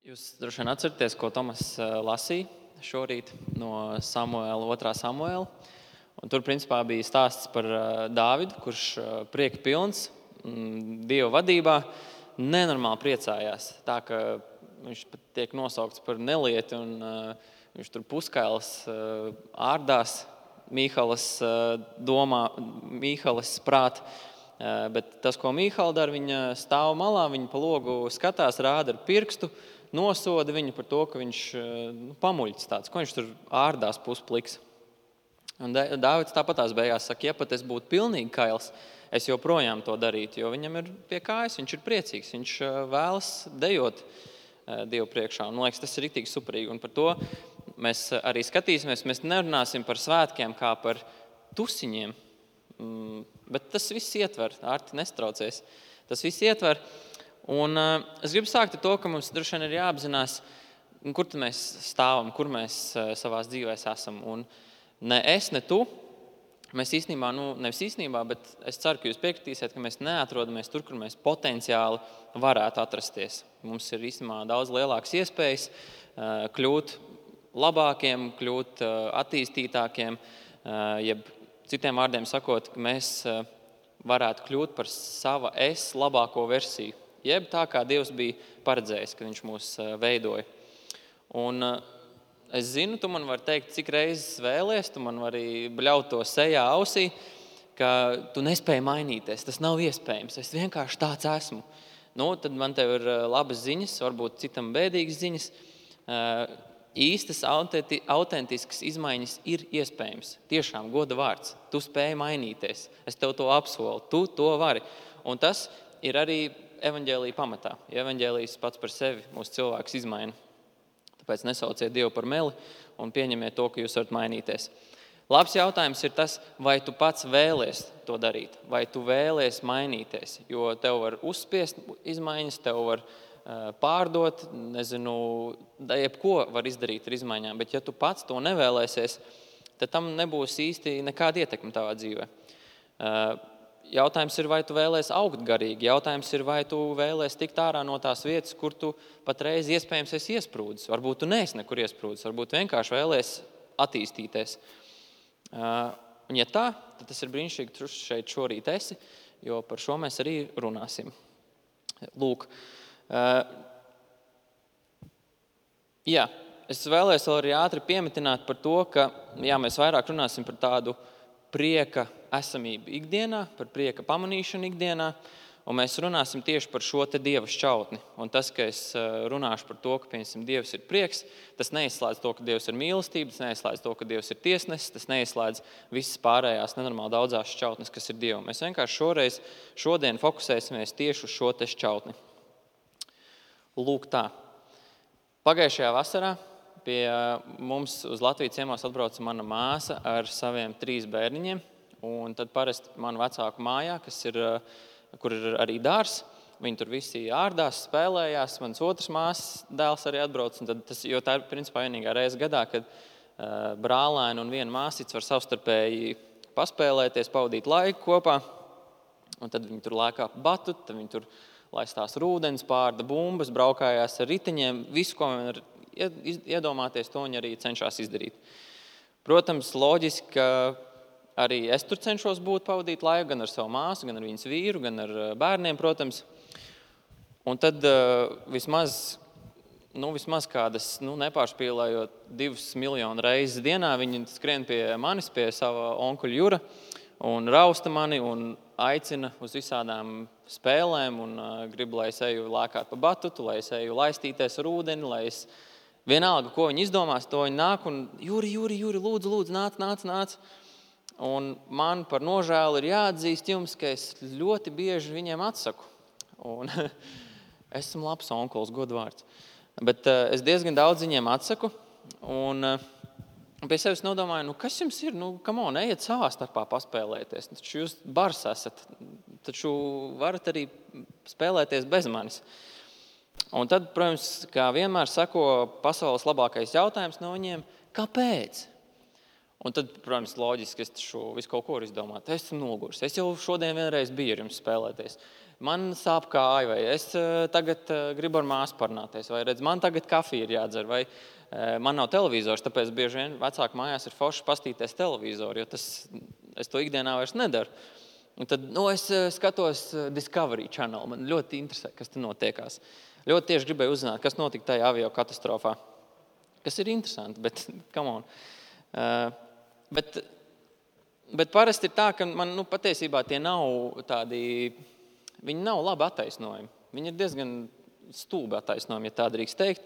Jūs droši vien atceraties, ko Tomas lasīja šorīt no Samuēla, 2. Samuēla. Un tur principā bija stāsts par Dāvidu, kurš prieka pilns, Dieva vadībā, nenormāli priecājās. Tā, ka viņš pat tiek nosaukts par nelieti un viņš tur puskails ārdās Mīhalas domā, Mīhalas prāt. Bet tas, ko Mīhala dara, viņa stāv malā, viņa pa logu skatās, rāda ar pirkstu, nosoda viņu par to, ka viņš pamuļķis tāds, ko viņš tur ārdās puspliks. Un Dāvids tāpatās beigās saka, ja pat es būtu pilnīgi kails, es joprojām to darītu, jo viņam ir pie kājas, viņš ir priecīgs, viņš vēlas dejot Dievu priekšā. Un, man liekas, tas ir riktīgi superīgi. Un par to mēs arī skatīsimies. Mēs nerunāsim par svētkiem kā par tusiņiem, bet tas viss ietver, Arti nestraucies. Tas viss ietver. Un es gribu sākt ar to, ka mums droši vien ir jāapzinās, kur tad mēs stāvam, kur mēs savās dzīvēs esam. Un ne es, ne tu, mēs īstenībā, nevis īstenībā, bet es ceru, ka jūs piekritīsiet, ka mēs neatrodamies tur, kur mēs potenciāli varētu atrasties. Mums ir īstenībā daudz lielākas iespējas kļūt labākiem, kļūt attīstītākiem, jeb citiem vārdiem sakot, ka mēs varētu kļūt par sava es labāko versiju. Jeb tā, kā Dievs bija paredzējis, kad viņš mūs veidoja. Un es zinu, tu man vari teikt, cik reizes vēlies, tu man vari bļaut to sejā ausī, ka tu nespēji mainīties, tas nav iespējams, es vienkārši tāds esmu. Tad man tev ir labas ziņas, varbūt citam bēdīgas ziņas. Īstas, autentiskas izmaiņas ir iespējams. Tiešām, goda vārds, tu spēji mainīties, es tev to apsolu, tu to vari. Un tas ir arī evaņģēlija pamatā. Ja evaņģēlijs pats par sevi mūsu cilvēks izmaina. Tāpēc nesauciet Dievu par meli un pieņemiet to, ka jūs varat mainīties. Labs jautājums ir tas, vai tu pats vēlies to darīt, vai tu vēlies mainīties, jo tev var uzspiest izmaiņas, tev var pārdot, jebko var izdarīt ar izmaiņām, bet ja tu pats to nevēlēsies, tad tam nebūs īsti nekāda ietekme tavā dzīvē. Jautājums ir, vai tu vēlies augt garīgi, jautājums ir, vai tu vēlies tikt ārā no tās vietas, kur tu patreiz iespējams esi iesprūdis. Varbūt tu neesi nekur iesprūdis, varbūt vienkārši vēlies attīstīties. Un ja tā, tad tas ir brīnišķīgi, ka tu šeit šorīt esi, jo par šo mēs arī runāsim. Lūk. Es vēlēs vēl arī ātri piemetināt par to, ka mēs vairāk runāsim par tādu prieka esamību ikdienā, par prieka pamanīšanu ikdienā, un mēs runāsim tieši par šo te Dieva šķautni. Un tas, ka es runāšu par to, ka, piemēram, Dievs ir prieks, tas neizslēdz to, ka Dievs ir mīlestība, tas neizslēdz to, ka Dievs ir tiesnesis, tas neizslēdz visas pārējās nenormāli daudzās šķautnes, kas ir Dievam. Mēs vienkārši šodien fokusēsimies tieši uz šo te šķautni. Lūk tā. Pagājušajā vasarā pie mums uz Latvijas ciemos atbrauca mana māsa ar saviem 3 bērniņiem. Un tad parasti manu vecāku mājā, kur ir arī dārs, viņi tur visi ārdās, spēlējās, mans otrs māsas dēls arī atbrauc. Jo tā ir principā vienīgā reize gadā, kad brālēni un viena māsīca var savstarpēji paspēlēties, pavadīt laiku kopā. Un tad viņi tur lēkā pa batutu, tad viņi tur laistās rūdens, pārda bumbas, braukājās ar riteņiem, visu, ko viņi var iedomāties, to viņi arī cenšas izdarīt. Protams, loģiski, ka arī es tur cenšos pavadīt laiku gan ar savu māsu, gan ar viņas vīru, gan ar bērniem, protams. Un tad vismaz kādas, nepārspīlējot 2 miljonu reizes dienā, viņi skrien pie manis, pie sava onkuļa Jura un rausta mani un aicina uz visādām spēlēm un grib, lai es eju lēkāt pa batutu, lai es eju laistīties ar ūdeni, lai es vienalga, ko viņi izdomās, to viņi nāk un Juri, lūdzu, nāc. Un man par nožēlu ir jāatzīst jums, ka es ļoti bieži viņiem atsaku. Un esmu labs onkulis, godvārds. Bet es diezgan daudz viņiem atsaku. Un pie sevis nodomāju, kas jums ir? Ejiet savā starpā paspēlēties. Taču jūs bars esat. Taču varat arī spēlēties bez manis. Un tad, protams, kā vienmēr sako pasaules labākais jautājums no viņiem, kāpēc? Un tad, protams, loģiski, es šo visu kaut ko varu izdomāt. Es esmu noguris. Es jau šodien vienreiz biju ar jums spēlēties. Man sāp kāja, vai es tagad gribu ar māsu parunāties, vai redz, man tagad kafija ir jādzer, vai man nav televizors, tāpēc bieži vien vecāku mājās ir forši pastīties televizoru, jo es to ikdienā vairs nedaru. Un tad es skatos Discovery Channel. Man ļoti interesē, kas tur notiekās. Ļoti tieši gribēju uzzināt, kas notika tajā avio katastrofā. Kas ir interesanti, bet come on. Bet parasti ir tā, ka man patiesībā tie nav tādi, viņi nav labi attaisnojumi. Viņi ir diezgan stulbi attaisnojumi, ja tā drīkst teikt.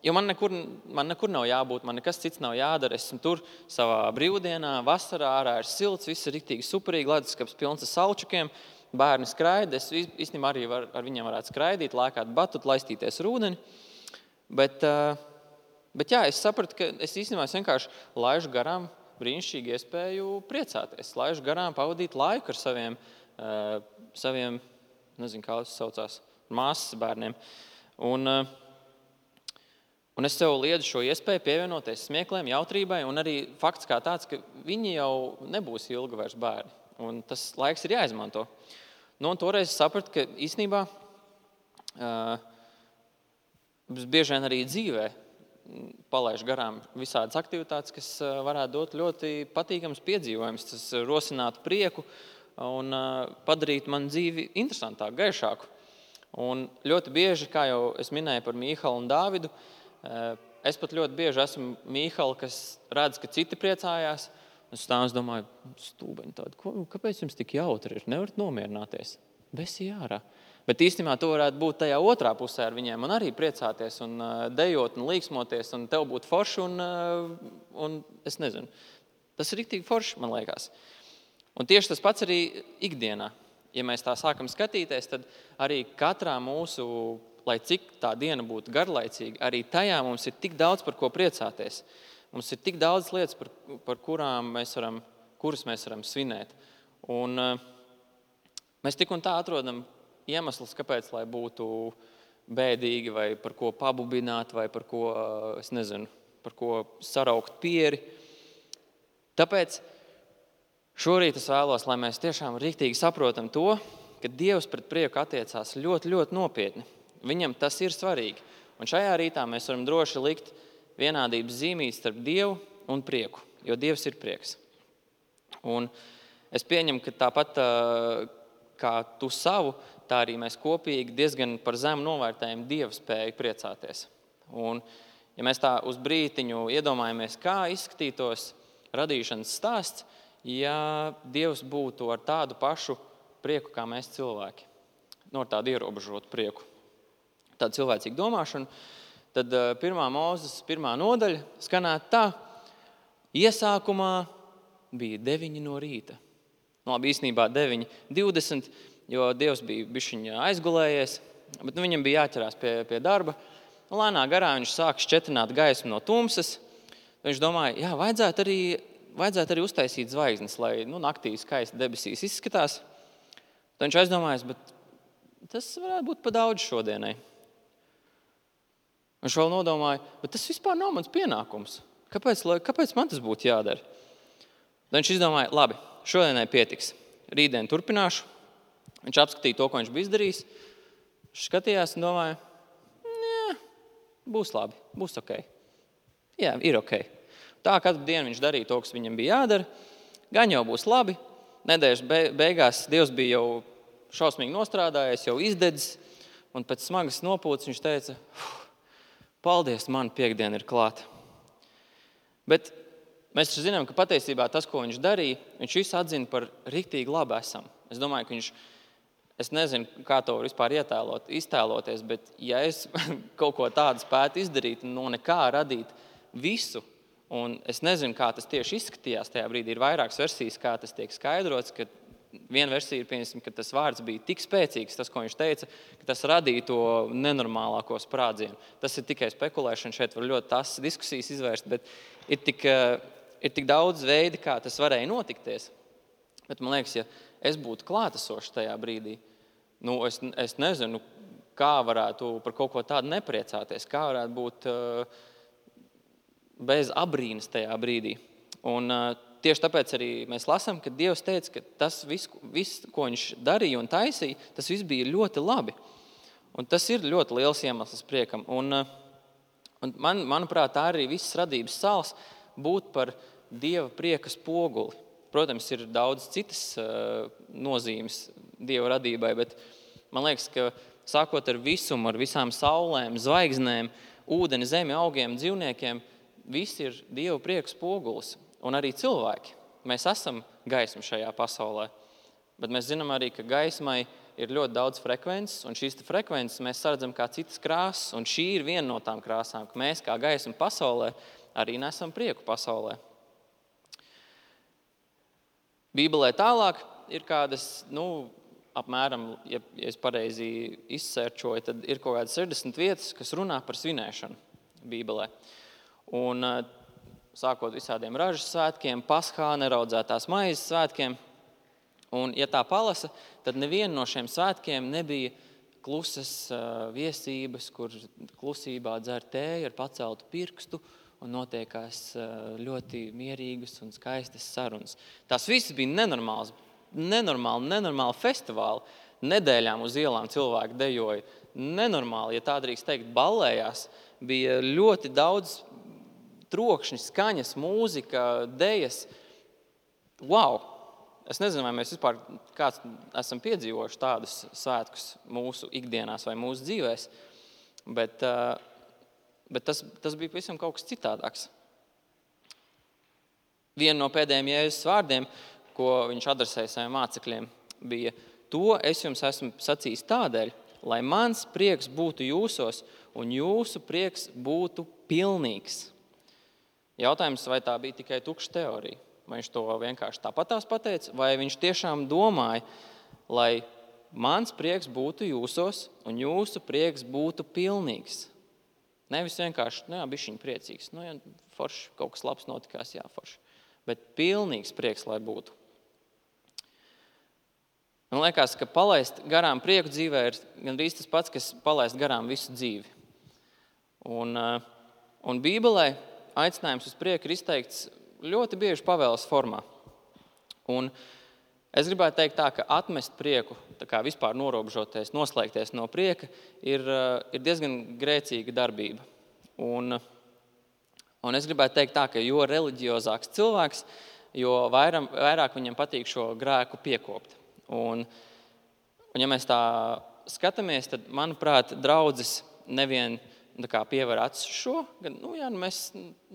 Jo man nekur nav jābūt, man nekas cits nav jādara. Es esmu tur savā brīvdienā, vasarā, ārā ir silts, viss ir riktīgi superīgi, leduskapis pilns ar salčukiem, bērni skraida. Es īstenībā arī ar viņiem varētu skraidīt, lēkāt batut, laistīties ar ūdeni. Bet jā, es sapratu, ka es īstenībā vienkārši laižu garām brīnišķīgu iespēju priecāties. Laižu garām pavadīt laiku ar saviem nezinu, kā tas saucās, māsas bērniem. Un es sev liedzu šo iespēju pievienoties smiekliem, jautrībai, un arī fakts kā tāds, ka viņi jau nebūs ilgi vairs bērni. Un tas laiks ir jāizmanto. Un toreiz es sapratu, ka īstenībā bieži vien arī dzīvē palaiž garām visādas aktivitātes, kas varētu dot ļoti patīkams piedzīvojums. Tas rosinātu prieku un padarītu man dzīvi interesantāku, gaišāku. Un ļoti bieži, kā jau es minēju par Mīhalu un Dāvidu, es pat ļoti bieži esmu Mīhala, kas redz, ka citi priecājās. Es domāju, stūbeņi tādi, kāpēc jums tik jautri ir? Nevarat nomierināties. Besi ārā. Bet īstenībā to varētu būt tajā otrā pusē ar viņiem un arī priecāties un dejot un līksmoties un tev būt forši un es nezinu. Tas ir riktīgi forši, man liekas. Un tieši tas pats arī ikdienā. Ja mēs tā sākam skatīties, tad arī katrā mūsu, lai cik tā diena būtu garlaicīga, arī tajā mums ir tik daudz par ko priecāties. Mums ir tik daudz lietas, par kuras mēs varam svinēt. Un mēs tik un tā atrodam iemeslus, kāpēc, lai būtu bēdīgi, vai par ko pabubināt, vai par ko, es nezinu, par ko saraukt pieri. Tāpēc šorīt es vēlos, lai mēs tiešām riktīgi saprotam to, ka Dievs pret prieku attiecās ļoti, ļoti nopietni. Viņam tas ir svarīgi. Un šajā rītā mēs varam droši likt vienādības zīmīt starp Dievu un prieku, jo Dievs ir prieks. Un es pieņemu, ka tāpat kā tu savu, tā arī mēs kopīgi diezgan par zemu novērtējam Dieva spēju priecāties. Un ja mēs tā uz brītiņu iedomājamies, kā izskatītos radīšanas stāsts, ja Dievs būtu ar tādu pašu prieku kā mēs cilvēki, ar tādu ierobežotu prieku, tādu cilvēcīgu domāšanu, tad 1. Mūzes 1. nodaļa skanētu tā: iesākumā bija 9 no rīta. Labi, īstenībā 9:20, jo Dievs bija bišķiņ aizgulējies, bet viņam bija jāķerās pie darba. Lēnā garā viņš sāk šķetrināt gaismu no tumsas. Viņš domāja, jā, vajadzētu arī uztaisīt zvaigznes, lai naktī skaisti debesīs izskatās. Tad viņš aizdomājas, bet tas varētu būt pa daudz šodienai. Viņš vēl nodomāja, bet tas vispār nav mans pienākums. Kāpēc man tas būtu jādara? Tad viņš izdomāja, labi, šodienai pietiks. Rītdien turpināšu. Viņš apskatīja to, ko viņš bija izdarījis. Viņš skatījās un domāja, būs labi, būs ok. Jā, ir ok. Tā katru dienu viņš darīja to, kas viņam bija jādara. Gan jau būs labi. Nedēļas beigās Dievs bija jau šausmīgi nostrādājies, jau izdedzis. Un pēc smagas nopūtas viņš teica, paldies, man piektdiena ir klāta. Bet mēs zinām, ka patiesībā tas, ko viņš darīja, viņš visu atzina par riktīgi labu esam. Es domāju, ka es nezinu, kā to var vispār iztēloties, bet ja es kaut ko tādu spētu izdarīt un no nekā radīt visu, un es nezinu, kā tas tieši izskatījās tajā brīdī, ir vairākas versijas, kā tas tiek skaidrots, ka viena versija ir, pieņemsim, ka tas vārds bija tik spēcīgs, tas, ko viņš teica, ka tas radīja to nenormālāko sprādzienu. Tas ir tikai spekulēšana, šeit var ļoti tās diskusijas izvērst, bet ir tik daudz veidi, kā tas varēja notikties. Bet man liekas, ja es būtu klātesošs tajā brīdī, es nezinu, kā varētu par kaut ko tādu nepriecāties, kā varētu būt bez abrīnas tajā brīdī. Un tieši tāpēc arī mēs lasām, ka Dievs teica, ka tas viss, ko viņš darīja un taisīja, tas viss bija ļoti labi. Un tas ir ļoti liels iemesls priekam. Un manuprāt, tā arī visas radības sāls būt par Dieva prieka spoguli. Protams, ir daudz citas nozīmes Dieva radībai, bet man liekas, ka sākot ar visumu, ar visām saulēm, zvaigznēm, ūdeni, zemi, augiem, dzīvniekiem, viss ir Dieva prieka spogulis. Un arī cilvēki. Mēs esam gaisma šajā pasaulē, bet mēs zinām arī, ka gaismai ir ļoti daudz frekvences, un šīs frekvences mēs saredzam kā citas krāsas, un šī ir viena no tām krāsām, ka mēs kā gaisma pasaulē arī nesam prieku pasaulē. Bībelē tālāk ir kādas, apmēram, ja es pareizi izsērčoju, tad ir kaut kādas 60 vietas, kas runā par svinēšanu Bībelē. Un sākot visādiem ražas svētkiem, Paskā, neraudzētās maizes svētkiem. Un, ja tā palasa, tad neviena no šiem svētkiem nebija klusas viesības, kur klusībā dzer tēju ar paceltu pirkstu un notiekās ļoti mierīgas un skaistas sarunas. Tās visas bija nenormāli festivāli. Nedēļām uz ielām cilvēki dejoja. Nenormāli, ja tā drīkst teikt, ballējās. Bija ļoti daudz trokšņi, skaņas, mūzika, dejas. Wow! Es nezinu, vai mēs vispār kāds esam piedzīvojuši tādus svētkus mūsu ikdienās vai mūsu dzīvēs, bet tas bija pavisam kaut kas citādāks. Viena no pēdējiem Jēzus vārdiem, ko viņš adresēja saviem mācekļiem, bija: to es jums esmu sacījis tādēļ, lai mans prieks būtu jūsos un jūsu prieks būtu pilnīgs. Jautājums, vai tā bija tikai tukša teorija? Vai viņš to vienkārši tāpatās pateica, vai viņš tiešām domāja, lai mans prieks būtu jūsos un jūsu prieks būtu pilnīgs? Nevis vienkārši, bišķiņ priecīgs, forši, kaut kas labs notikās, forši. Bet pilnīgs prieks, lai būtu. Man liekas, ka palaist garām prieku dzīvē ir gandrīz tas pats, kas palaist garām visu dzīvi. Un Bībelē aicinājums uz prieku ir izteikts ļoti bieži pavēles formā. Un es gribētu teikt tā, ka atmest prieku, tā kā vispār norobežoties, noslēgties no prieka, ir diezgan grēcīga darbība. Un es gribētu teikt tā, ka jo reliģiozāks cilvēks, jo vairāk viņam patīk šo grēku piekopt. Un ja mēs tā skatāmies, tad, manuprāt, draudzes nevien pievar acis šo, gan,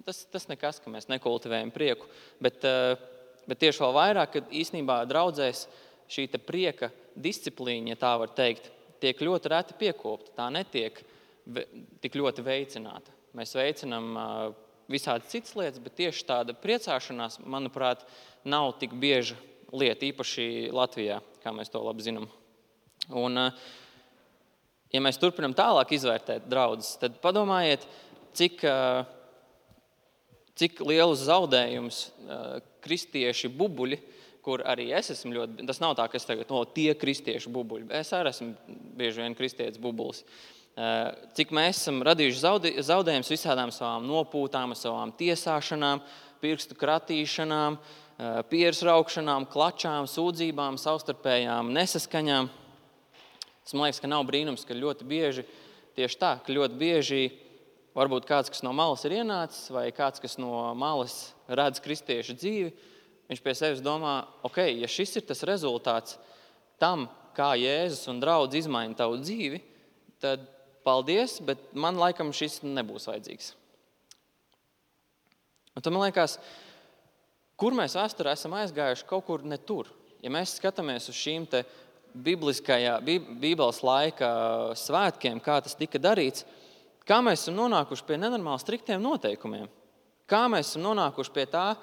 tas nekas, ka mēs nekultivējam prieku, bet tieši vēl vairāk, kad īstenībā draudzēs šī prieka disciplīna, ja tā var teikt, tiek ļoti reti piekopta, tā netiek tik ļoti veicināta. Mēs veicinām visādi citas lietas, bet tieši tāda priecāšanās, manuprāt, nav tik bieža lieta, īpaši Latvijā, kā mēs to labi zinām. Un ja mēs turpinām tālāk izvērtēt draudzes, tad padomājiet, cik lielus zaudējumus kristieši bubuļi, kur arī es esmu ļoti, tas nav tā, ka es tagad, tie kristieši bubuļi, es arī esmu bieži vien kristietis bubulis. Cik mēs esam radījuši zaudējumus visādām savām nopūtām, savām tiesāšanām, pirkstu kratīšanām, pieres raukšanām, klačām, sūdzībām, savstarpējām nesaskaņām. Tas man liekas, ka nav brīnums, ka ļoti bieži, tieši tā, ka ļoti bieži varbūt kāds, kas no malas ir ienācis, vai kāds, kas no malas redz kristiešu dzīvi, viņš pie sevis domā, ja šis ir tas rezultāts tam, kā Jēzus un draudz izmaina tavu dzīvi, tad paldies, bet man laikam šis nebūs vajadzīgs. Un tad man liekas, kur mēs vēsturē esam aizgājuši kaut kur ne tur. Ja mēs skatāmies uz šīm te Bībeles laika svētkiem, kā tas tika darīts, kā mēs esam nonākuši pie nenormāli striktiem noteikumiem? Kā mēs esam nonākuši pie tā,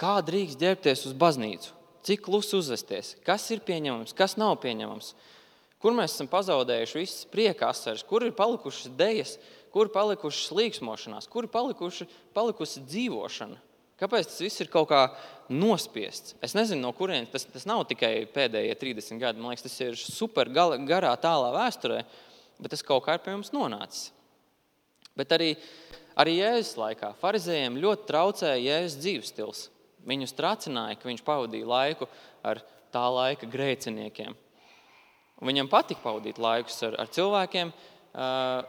kā drīkst ģērbties uz baznīcu? Cik klusi uzvesties? Kas ir pieņemams, kas nav pieņemams? Kur mēs esam pazaudējuši visas prieka asaras? Kur ir palikušas dejas? Kur ir palikušas līksmošanās? Kur ir palikusi dzīvošana? Kāpēc tas viss ir kaut kā nospiests? Es nezinu, no kurienes. Tas nav tikai pēdējie 30 gadi. Man liekas, tas ir super garā tālā vēsturē, bet tas kaut kā ir pie mums nonācis. Bet arī Arī Jēzus laikā farizējiem ļoti traucēja Jēzus dzīvesstils. Viņus tracināja, ka viņš pavadīja laiku ar tā laika grēciniekiem. Un viņam patika pavadīt laikus ar cilvēkiem, ar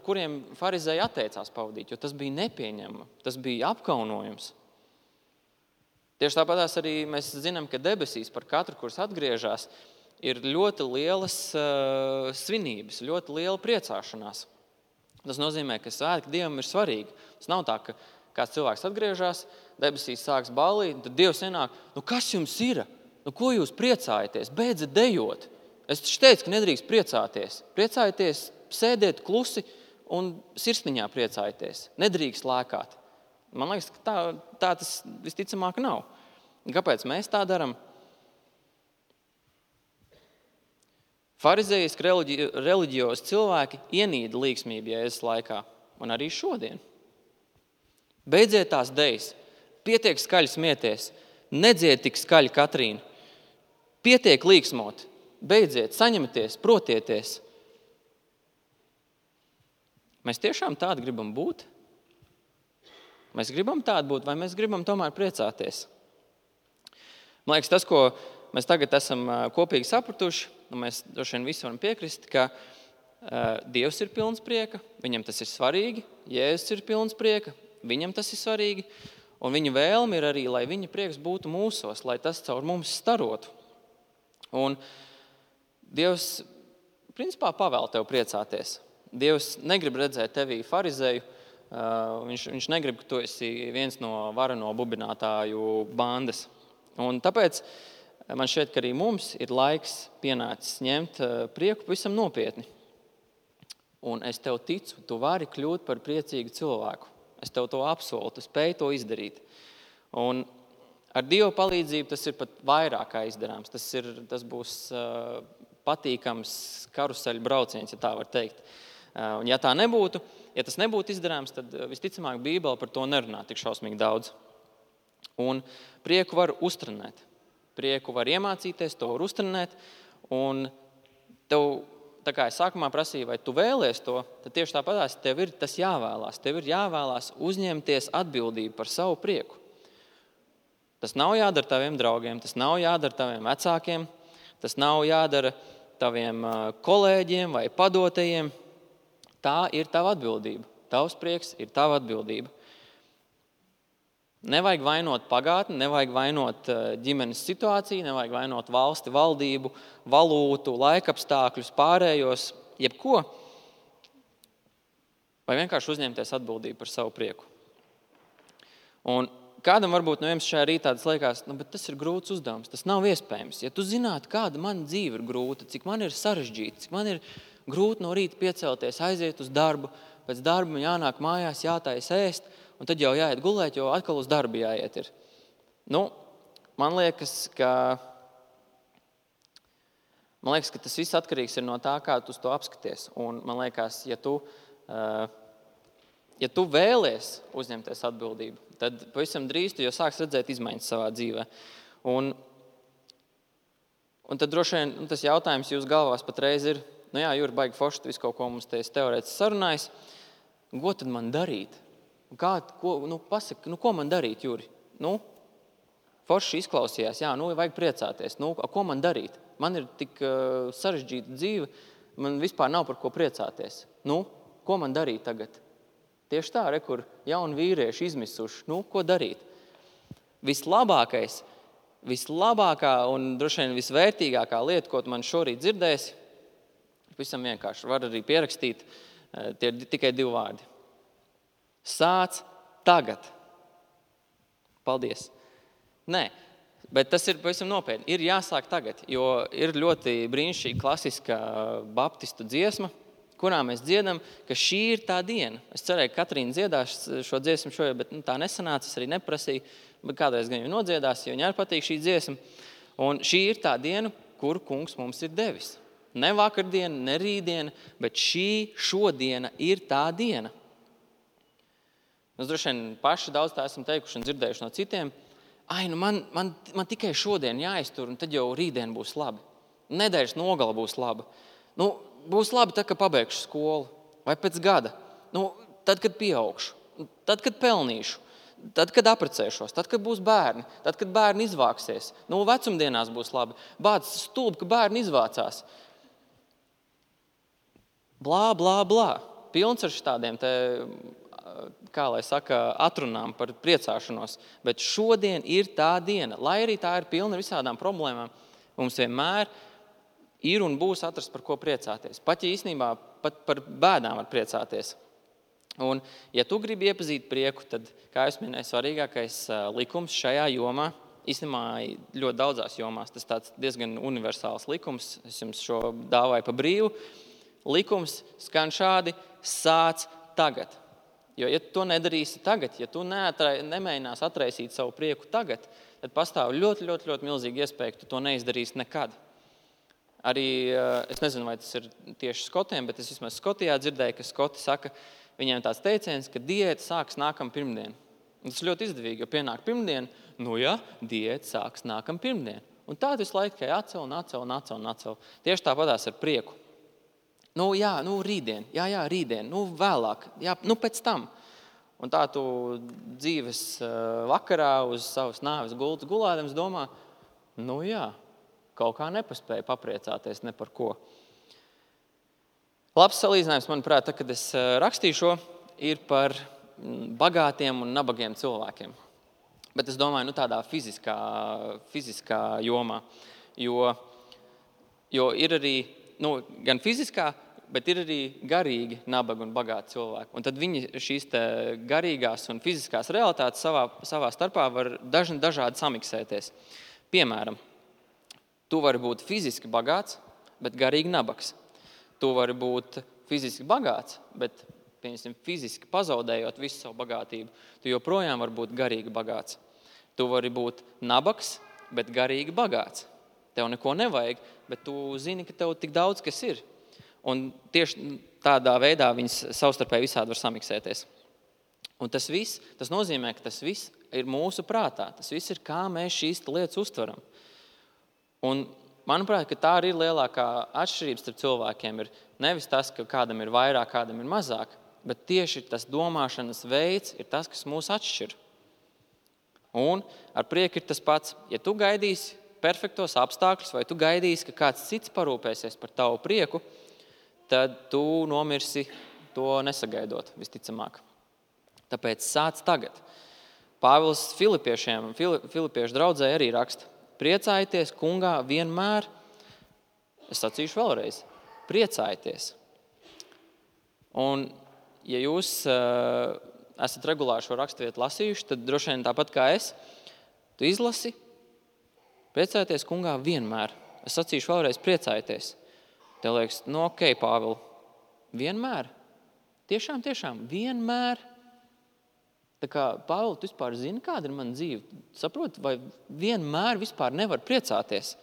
kuriem farizēji atteicās pavadīt, jo tas bija nepieņemama, tas bija apkaunojums. Tieši tāpatās arī mēs zinām, ka debesīs par katru, kurš atgriežas, ir ļoti lielas svinības, ļoti liela priecāšanās. Tas nozīmē, ka svētki Dievam ir svarīgi. Tas nav tā, ka kāds cilvēks atgriežas, debesīs sāks ballīt, tad Dievs ienāk, kas jums ir? Ko jūs priecājaties? Beidzat dejot. Es taču teicu, ka nedrīkst priecāties. Priecājieties, sēdiet klusi un sirsniņā priecājieties. Nedrīkst lēkāt. Man liekas, ka tā tas visticamāk nav. Kāpēc mēs tā darām? Farizējiski reliģiozi cilvēki ienīda līgsmību Jēzus laikā, un arī šodien. Beidziet tās dejas, pietiek skaļi smieties, nedzied tik skaļi Katrīna, pietiek līgsmot, beidziet, saņemieties, protieties. Mēs tiešām tādi gribam būt? Mēs gribam tādi būt, vai mēs gribam tomēr priecāties? Man liekas, tas, ko mēs tagad esam kopīgi sapratuši, un mēs droši vien visi varam piekrist, ka Dievs ir pilns prieka, viņam tas ir svarīgi, Jēzus ir pilns prieka, viņam tas ir svarīgi, un viņa vēlme ir arī, lai viņa prieks būtu mūsos, lai tas caur mums starotu. Un Dievs, principā, pavēl tev priecāties. Dievs negrib redzēt tevī farizēju, viņš negrib, ka tu esi viens no vareno bubinātāju bandas. Un tāpēc man šķiet, ka arī mums ir laiks pienācis ņemt prieku pavisam nopietni. Un es tev ticu, tu vari kļūt par priecīgu cilvēku. Es tev to apsolu, tu spēj to izdarīt. Un ar Dieva palīdzību tas ir pat vairāk kā izdarāms. Tas būs patīkams karuseļu brauciens, ja tā var teikt. Un ja tā nebūtu, ja tas nebūtu izdarāms, tad visticamāk Bībele par to nerunā tik šausmīgi daudz. Un prieku var uztrenēt. Prieku var iemācīties, to var uztrenēt. Un tev, tā kā es sākumā prasīju, vai tu vēlies to, tad tieši tāpatās tev ir tas jāvēlās. Tev ir jāvēlās uzņemties atbildību par savu prieku. Tas nav jādara taviem draugiem, tas nav jādara taviem vecākiem, tas nav jādara taviem kolēģiem vai padotajiem. Tā ir tava atbildība. Tavs prieks ir tava atbildība. Nevajag vainot pagātni, nevajag vainot ģimenes situāciju, nevajag vainot valsti, valdību, valūtu, laikapstākļus, pārējos, jebko. Vai vienkārši uzņemties atbildību par savu prieku. Un kādam varbūt no jums šajā rītā tas liekas, bet tas ir grūts uzdevums, tas nav iespējams. Ja tu zinātu, kāda man dzīve ir grūta, cik man ir sarežģīta, cik man ir grūti no rīta piecelties, aiziet uz darbu, pēc darba man jānāk mājās, jātais ēst, un tad jau jāiet gulēt, jo atkal uz darbu jāiet ir. Man liekas, ka tas viss atkarīgs ir no tā, kā tu uz to apskaties. Un man liekas, ja tu vēlies uzņemties atbildību, tad pavisam drīz tu jau sāks redzēt izmaiņas savā dzīvē. Un tad droši vien tas jautājums jūs galvās patreiz ir, Juri, baigi forši, tu visu kaut ko mums te teorētiski sarunājis. Ko tad man darīt? Pasaka, ko man darīt, Juri? Forši izklausījās, vajag priecāties. Ko man darīt? Man ir tik sarežģīta dzīve, man vispār nav par ko priecāties. Ko man darīt tagad? Tieši tā, kur jauni vīrieši izmisuši. Ko darīt? Vislabākā un droši vien visvērtīgākā lieta, ko tu man šorīt dzirdēsi, visam vienkārši var arī pierakstīt, tie ir tikai 2 vārdi. Sāc tagad. Paldies. Nē, bet tas ir pavisam nopietni. Ir jāsāk tagad, jo ir ļoti brīnišķīga klasiska baptistu dziesma, kurā mēs dziedam, ka šī ir tā diena. Es cerēju, ka Katrīna dziedās šo dziesmu šodien, bet tā nesanāca, es arī neprasīju, bet kādreiz gan jau nodziedās, jo viņai patīk šī dziesma. Un šī ir tā diena, kuru kungs mums ir devis. Ne vakardiena, ne rītdiena, bet šodiena ir tā diena. Mēs droši vien paši daudz tā esam teikuši un dzirdējuši no citiem. Man tikai šodien jāiztur, un tad jau rītdien būs labi. Nedēļas nogala būs laba. Būs labi tad, kad pabeigšu skolu, vai pēc gada. Tad, kad pieaugšu, tad, kad pelnīšu, tad, kad apprecēšos, tad, kad būs bērni, tad, kad bērni izvāksies. Vecumdienās būs labi. Bāc stulbi, ka bērni izvācās. Blā, blā, blā. Pilns ar šitādiem te, kā lai saka, atrunām par priecāšanos. Bet šodien ir tā diena. Lai arī tā ir pilna ar visādām problēmām, mums vienmēr ir un būs atrast, par ko priecāties. Pat ja īstenībā pat par bēdām var priecāties. Un, ja tu gribi iepazīt prieku, tad, kā es minēju, svarīgākais likums šajā jomā, īstenībā ļoti daudzās jomās, tas tāds diezgan universāls likums, es jums šo dāvāju pa brīvu, likums skan šādi: sāc tagad. Jo, ja tu to nedarīsi tagad, ja tu nemēģinās atraisīt savu prieku tagad, tad pastāv ļoti, ļoti, ļoti milzīgi iespēja, ka tu to neizdarīsi nekad. Arī, es nezinu, vai tas ir tieši skotiem, bet es vismaz Skotijā dzirdēju, ka skoti saka, viņiem tāds teiciens, ka diēta sāks nākam pirmdien. Un tas ir ļoti izdevīgi, jo pienāk pirmdien, diēta sāks nākam pirmdien. Un tā visu laiku tikai atcel. Tieši tāpatās ar prieku. Rītdien, rītdien, vēlāk, pēc tam. Un tā tu dzīves vakarā uz savas nāves gultas gulādams domā, kaut kā nepaspēju papriecāties ne par ko. Labs salīdzinājums, manuprāt, kad es rakstīju šo, ir par bagātiem un nabagiem cilvēkiem. Bet es domāju, tādā fiziskā jomā. Jo ir arī, gan fiziskā, bet ir arī garīgi nabagi un bagāti cilvēki. Un tad viņi šīs garīgās un fiziskās realitātes savā starpā var dažādi samiksēties. Piemēram, tu vari būt fiziski bagāts, bet garīgi nabags. Tu vari būt fiziski bagāts, bet fiziski pazaudējot visu savu bagātību, tu joprojām vari būt garīgi bagāts. Tu vari būt nabags, bet garīgi bagāts. Tev neko nevajag, bet tu zini, ka tev tik daudz, kas ir. Un tieši tādā veidā viņas savstarpēji visādi var samiksēties. Un tas nozīmē, ka tas viss ir mūsu prātā. Tas viss ir, kā mēs šīs lietas uztveram. Un manuprāt, ka tā arī ir lielākā atšķirība starp cilvēkiem. Ir nevis tas, ka kādam ir vairāk, kādam ir mazāk, bet tieši tas domāšanas veids ir tas, kas mūs atšķir. Un ar prieku ir tas pats. Ja tu gaidīsi perfektos apstākļus, vai tu gaidīsi, ka kāds cits parūpēsies par tavu prieku, tad tu nomirsi to nesagaidot, visticamāk. Tāpēc sāc tagad. Pāvils Filipiešu draudzē arī raksta: priecājieties kungā vienmēr. Es sacīšu vēlreiz: priecājieties. Un, ja jūs esat regulāri šo raksturvietu lasījuši, tad droši vien tāpat kā es, tu izlasi: priecājieties kungā vienmēr. Es sacīšu vēlreiz: priecājieties. Tev liekas, ok, Pāvil, vienmēr? Tiešām, vienmēr? Tā kā, Pāvil, tu vispār zini, kāda ir mana dzīve? Saproti, vai vienmēr vispār nevar priecāties?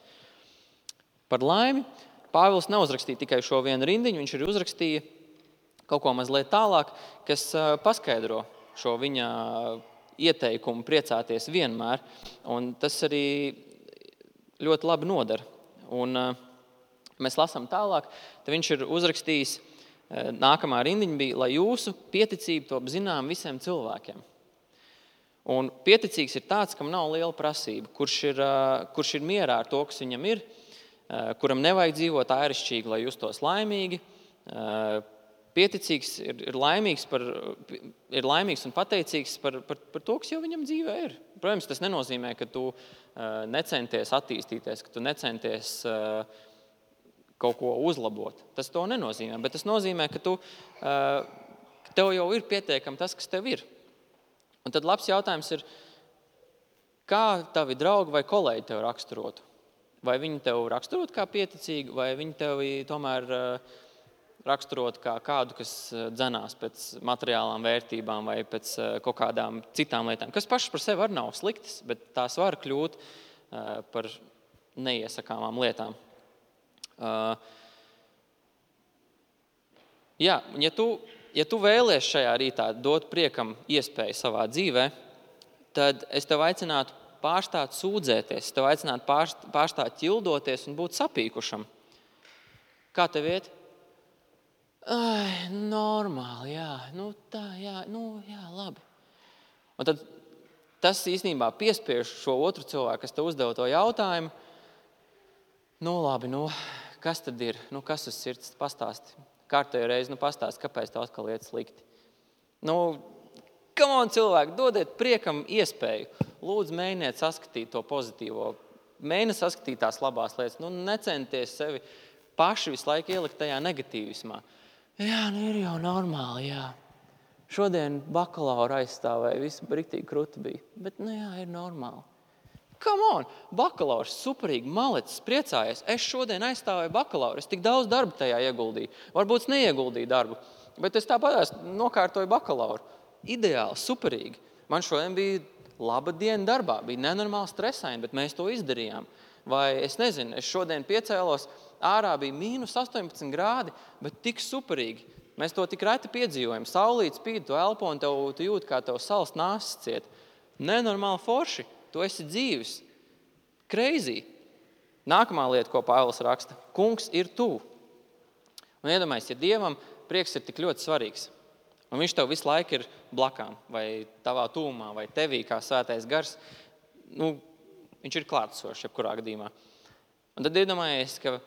Par laimi, Pāvils neuzrakstīja tikai šo vienu rindiņu, viņš arī uzrakstīja kaut ko mazliet tālāk, kas paskaidro šo viņa ieteikumu priecāties vienmēr. Un tas arī ļoti labi nodara. Un mēs lasām tālāk, tad viņš ir uzrakstījis, nākamā rindiņa bija, lai jūsu pieticība top zinām visiem cilvēkiem. Un pieticīgs ir tāds, kam nav liela prasība, kurš ir mierā ar to, kas viņam ir, kuram nevajag dzīvot ārišķīgi, lai justos laimīgi. Pieticīgs ir laimīgs un pateicīgs par to, kas jau viņam dzīvē ir. Protams, tas nenozīmē, ka tu necenties attīstīties, ka tu necenties kaut ko uzlabot. Tas to nenozīmē, bet tas nozīmē, ka tev jau ir pietiekami tas, kas tev ir. Un tad labs jautājums ir, kā tavi draugi vai kolēģi tev raksturotu? Vai viņi tev raksturot kā pieticīgi, vai viņi tev tomēr raksturot kā kādu, kas dzenās pēc materiālām vērtībām vai pēc kaut kādām citām lietām, kas pašas par sevi arī nav sliktas, bet tās var kļūt par neiesakāmām lietām. Ja tu vēlies šajā rītā dot priekam iespēju savā dzīvē, tad es tev aicinātu pārstāt sūdzēties, es tev aicinātu pārstāt ķildoties un būt sapīkušam. Kā tev iet? normāli, jā, tā, jā, jā, labi. Un tad tas īstenībā piespiež šo otru cilvēku, kas te uzdeva to jautājumu. Labi, kas tad ir? Kas uz sirds pastāsti? Kārtējo reizi, pastāsti, kāpēc tev atkal iet slikti? Come on, cilvēki, dodiet priekam iespēju. Lūdzu, mēģiniet saskatīt to pozitīvo. Mēģiniet saskatīt tās labās lietas. Necenties sevi paši visu laiku ielikt tajā negatīvismā. Jā, ir jau normāli, jā. Šodien bakalaura aizstāvēja, viss riktīgi kruti bija. Bet, jā, ir normāli. Come on, bakalaurs, superīgi, malecis, priecājies. Es šodien aizstāvēju bakalauru, es tik daudz darba tajā ieguldīju. Varbūt es neieguldīju darbu, bet es tāpat nokārtoju bakalauru. Ideāli, superīgi. Man šodien bija laba diena darbā, bija nenormāli stresaini, bet mēs to izdarījām. Vai es nezinu, es šodien piecēlos, ārā bija -18 grādi, bet tik superīgi. Mēs to tik reti piedzīvojam. Saulīt spīd, tu elpo un tu jūti, kā tev salas nāsas ciet. Nenormāli forši. Tu esi dzīvis. Crazy. Nākamā lieta, ko Pāvils raksta. Kungs ir tuvu. Un iedomājies, ja Dievam prieks ir tik ļoti svarīgs, un viņš tev visu laiku ir blakām, vai tavā tuvumā, vai tevī kā svētais gars, viņš ir klātesošs jebkurā gadījumā. Un tad iedomājies, ka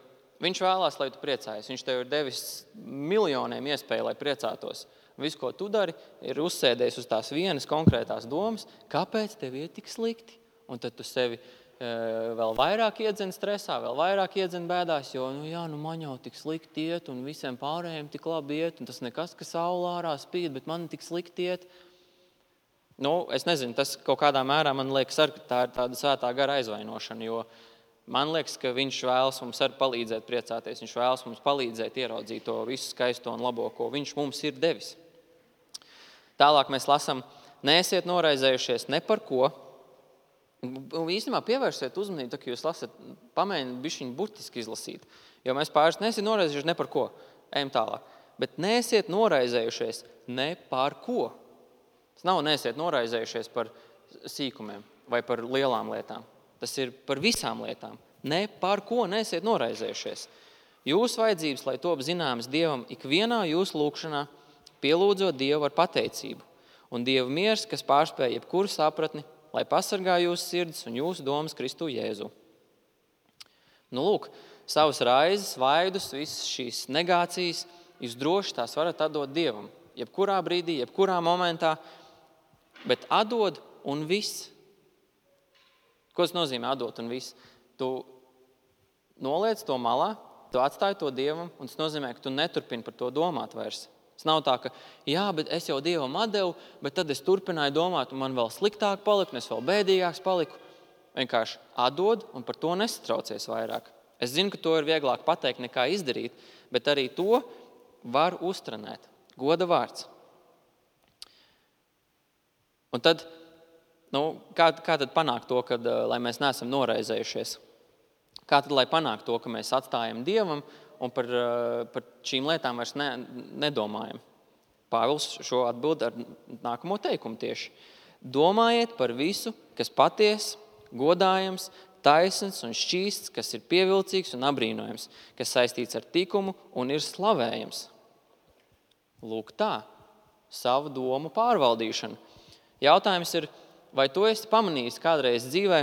viņš vēlās, lai tu priecājies. Viņš tev ir devis miljoniem iespēju, lai priecātos. Viss, ko tu dari, ir uzsēdies uz tās vienas konkrētās domas, kāpēc tev ir tik slikti. Un tad tu sevi vēl vairāk iedzen stresā, vēl vairāk iedzen bēdās, jo man jau tik slikti iet, un visiem pārējiem tik labi iet, un tas nekas, ka saule ārā spīd, bet man tik slikti iet. Es nezinu, tas kaut kādā mērā man liekas, ka tā ir tāda svētā gara aizvainošana, jo man liekas, ka viņš vēlas mums arī palīdzēt priecāties, viņš vēlas mums palīdzēt ieraudzīt to visu skaisto un labo, ko viņš mums ir devis. Tālāk mēs lasām, neesiet noraizējušies ne par ko. Un īstenībā pievērsiet uzmanību, tā, ka jūs lasat, pamēģiniet bišķiņu burtiski izlasīt. Jo mēs pāris neesiet noraizējušies ne par ko. Ejam tālāk. Bet neesiet noraizējušies ne par ko. Tas nav neesiet noraizējušies par sīkumiem vai par lielām lietām. Tas ir par visām lietām. Ne par ko neesiet noraizējušies. Jūsu vajadzības, lai top zināmas Dievam ikvienā jūsu lūkšanā, pielūdzot Dievu ar pateicību. Un Dieva miers, kas pārspēj jebkuru sapratni, lai pasargā jūsu sirdis un jūsu domas Kristu Jēzu. Lūk, savas raizes, vaidus, visas šīs negācijas, jūs droši tās varat atdot Dievam. Jebkurā brīdī, jebkurā momentā, bet atdod un viss. Ko tas nozīmē atdot un viss? Tu noliec to malā, tu atstāji to Dievam, un tas nozīmē, ka tu neturpini par to domāt vairs. Tas nav tā, ka jā, bet es jau Dievam atdevu, bet tad es turpināju domāt, un man vēl sliktāk paliku, un es vēl bēdīgāks paliku. Vienkārši atdod un par to nesatraucies vairāk. Es zinu, ka to ir vieglāk pateikt nekā izdarīt, bet arī to var uztrenēt. Goda vārds. Un tad, kā tad panākt to, lai mēs neesam noraizējušies? Kā tad, lai panākt to, ka mēs atstājam Dievam un par šīm lietām vairs nedomājam? Pāvils šo atbild ar nākamo teikumu tieši. Domājiet par visu, kas paties, godājams, taisns un šķīsts, kas ir pievilcīgs un apbrīnojams, kas saistīts ar tikumu un ir slavējams. Lūk tā, savu domu pārvaldīšana. Jautājums ir, vai tu esi pamanījis kādreiz dzīvē,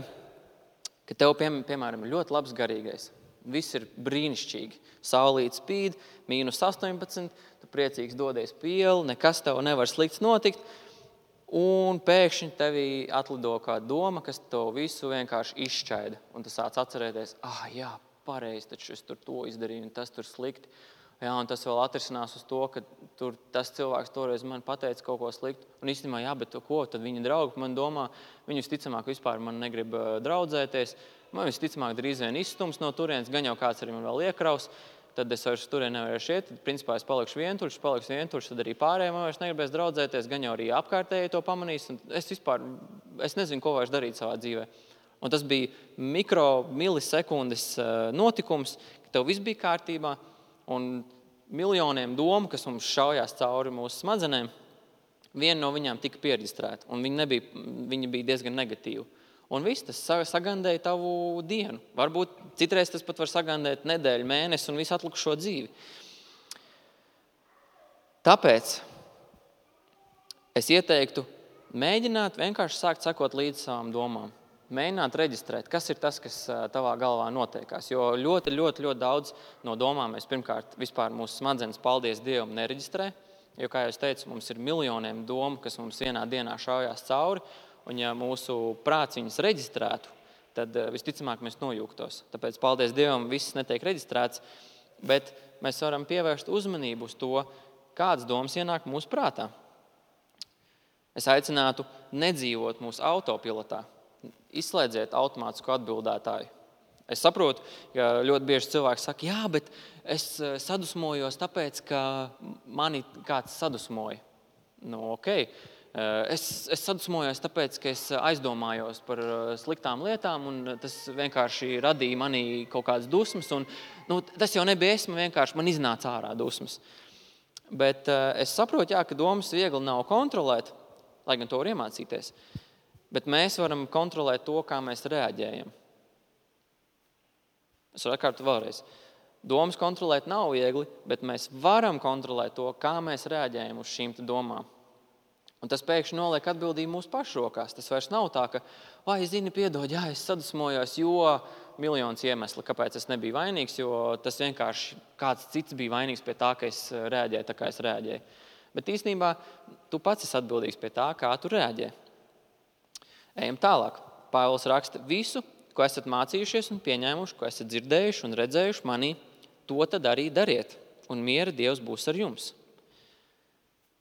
ka tev, piemēram, ir ļoti labs garīgais. Viss ir brīnišķīgi. Saulīt spīd, -18, tu priecīgs dodies pie ielu, nekas tev nevar slikts notikt, un pēkšņi tevī atlido kāda doma, kas tev visu vienkārši izšķaida. Un tu sāc atcerēties, jā, pareizi, taču es tur to izdarīju, un tas tur slikti. Jā, un tas vēl atrisinās uz to, ka tas cilvēks toreiz man pateica kaut ko sliktu. Un īstenībā, jā, bet ko, tad viņa draugi man domā, viņi visticamāk vispār man negrib draudzēties, man visticamāk drīz vien izstums no turienes, gan jau kāds arī man vēl iekraus, tad es vairs turien nevarēšu iet, tad principā es palikšu vientuļš, tad arī pārējiem vairs negribēs draudzēties, gan jau arī apkārtēji to pamanīs, un es nezinu, ko vairs darīt savā dzīvē. Un tas bija milisekundes notikums, ka tev viss bija kārtībā, un miljoniem domu, kas mums šaujās cauri mūsu smadzenēm, viena no viņām tika pieregistrēta, un viņa bija diezgan negatīva. Un viss tas sagandēja tavu dienu. Varbūt citreiz tas pat var sagandēt nedēļu, mēnesi un visu atlikušo dzīvi. Tāpēc es ieteiktu mēģināt vienkārši sākt sekot līdz savām domām. Mēģināt reģistrēt, kas ir tas, kas tavā galvā notiekās. Jo ļoti, ļoti, ļoti daudz no domām mēs pirmkārt vispār mūsu smadzenes, paldies Dievam, nereģistrē. Jo, kā jau es teicu, mums ir miljoniem domu, kas mums vienā dienā šaujās cauri. Un ja mūsu prāts viņas reģistrētu, tad visticamāk mēs nojūgtos. Tāpēc, paldies Dievam, viss netiek reģistrēts, bet mēs varam pievērst uzmanību uz to, kādas domas ienāk mūsu prātā. Es aicinātu nedzīvot mūsu autopilotā. Izslēdziet automātisku atbildētāju. Es saprotu, ka ļoti bieži cilvēki saka, jā, bet es sadusmojos tāpēc, ka mani kāds sadusmoja. Okay. Es sadusmojos tāpēc, ka es aizdomājos par sliktām lietām, un tas vienkārši radīja manī kaut kādas dusmas. Un, tas jau nebija es, man iznāca ārā dusmas. Bet es saprotu, ka domas viegli nav kontrolēt, lai gan to var iemācīties. Bet mēs varam kontrolēt to, kā mēs reaģējam. Es varu atkārtot vēlreiz. Domas kontrolēt nav viegli, bet mēs varam kontrolēt to, kā mēs reaģējam uz šīm domām. Un tas pēkšņi noliek atbildību mūsu pašu rokās. Tas vairs nav tā, ka, zini, piedod, es sadusmojos, jo miljonus iemesli, kāpēc es nebiju vainīgs, jo tas vienkārši kāds cits bija vainīgs pie tā, ka es reaģēju tā, kā es reaģēju. Bet īstenībā tu pats esi atbildīgs pie tā, kā tu reaģē. Ejam tālāk. Pāvils raksta, visu, ko esat mācījušies un pieņēmuši, ko esat dzirdējuši un redzējuši manī, to tad arī dariet, un miera Dievs būs ar jums.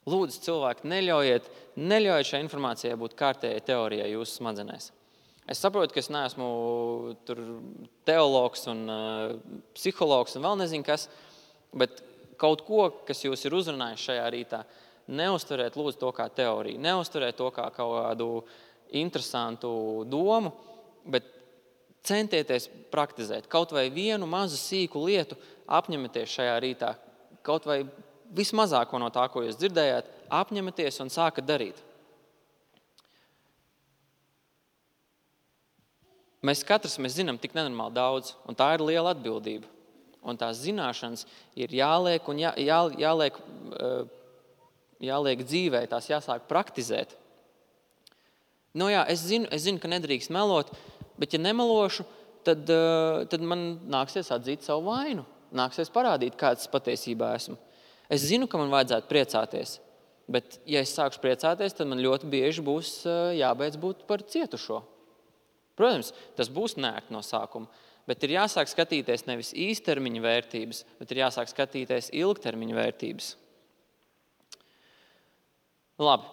Lūdzu, cilvēki, neļaujiet šai informācijai būt kārtējai teorijai jūsu smadzenēs. Es saprotu, ka es neesmu teologs un psihologs un vēl nezinu kas, bet kaut ko, kas jūs ir uzrunājis šajā rītā, neuztveriet lūdzu to kā teoriju, neuztveriet to kā kaut kādu interesantu domu, bet centieties praktizēt. Kaut vai vienu mazu sīku lietu apņematies šajā rītā, kaut vai vismazāko no tā, ko jūs dzirdējāt, apņematies un sākat darīt. Mēs katrs zinām tik nenormāli daudz, un tā ir liela atbildība. Un tās zināšanas ir jāliek un jāliek dzīvē, tās jāsāk praktizēt. Es zinu, ka nedrīkst melot, bet ja nemelošu, tad man nāksies atzīt savu vainu. Nāksies parādīt, kāds patiesībā esmu. Es zinu, ka man vajadzētu priecāties, bet ja es sākšu priecāties, tad man ļoti bieži būs jābeidz būt par cietušo. Protams, tas būs nērti no sākuma, bet ir jāsāk skatīties nevis īstermiņa vērtības, bet ir jāsāk skatīties ilgtermiņa vērtības. Labi,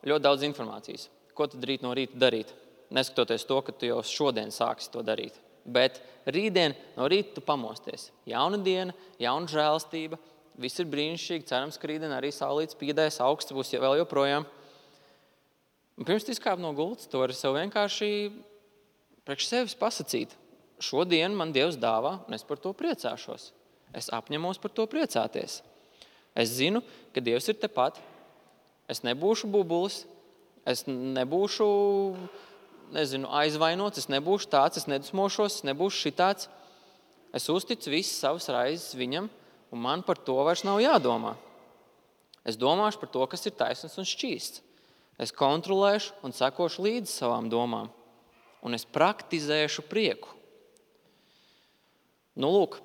ļoti daudz informācijas. Ko tad rīt no rīta darīt? Neskatoties to, ka tu jau šodien sāksi to darīt. Bet rītdien no rīta tu pamosties. Jauna diena, jauna žēlastība, viss ir brīnišķīgi, cerams, ka rītdien arī saulītes pīdēs, augsts būs vēl joprojām. Un pirms tu izkāp no gultas, tu vari sev vienkārši priekš sevis pasacīt. Šodien man Dievs dāvā, un es par to priecāšos. Es apņemos par to priecāties. Es zinu, ka Dievs ir tepat. Es nebūšu bubulis. Es nebūšu, aizvainots, es nebūšu tāds, es nedusmošos, es nebūšu šitāds. Es uzticu visas savas raizes viņam, un man par to vairs nav jādomā. Es domāšu par to, kas ir taisns un šķīsts. Es kontrolēšu un sekošu līdzi savām domām, un es praktizēšu prieku. Lūk,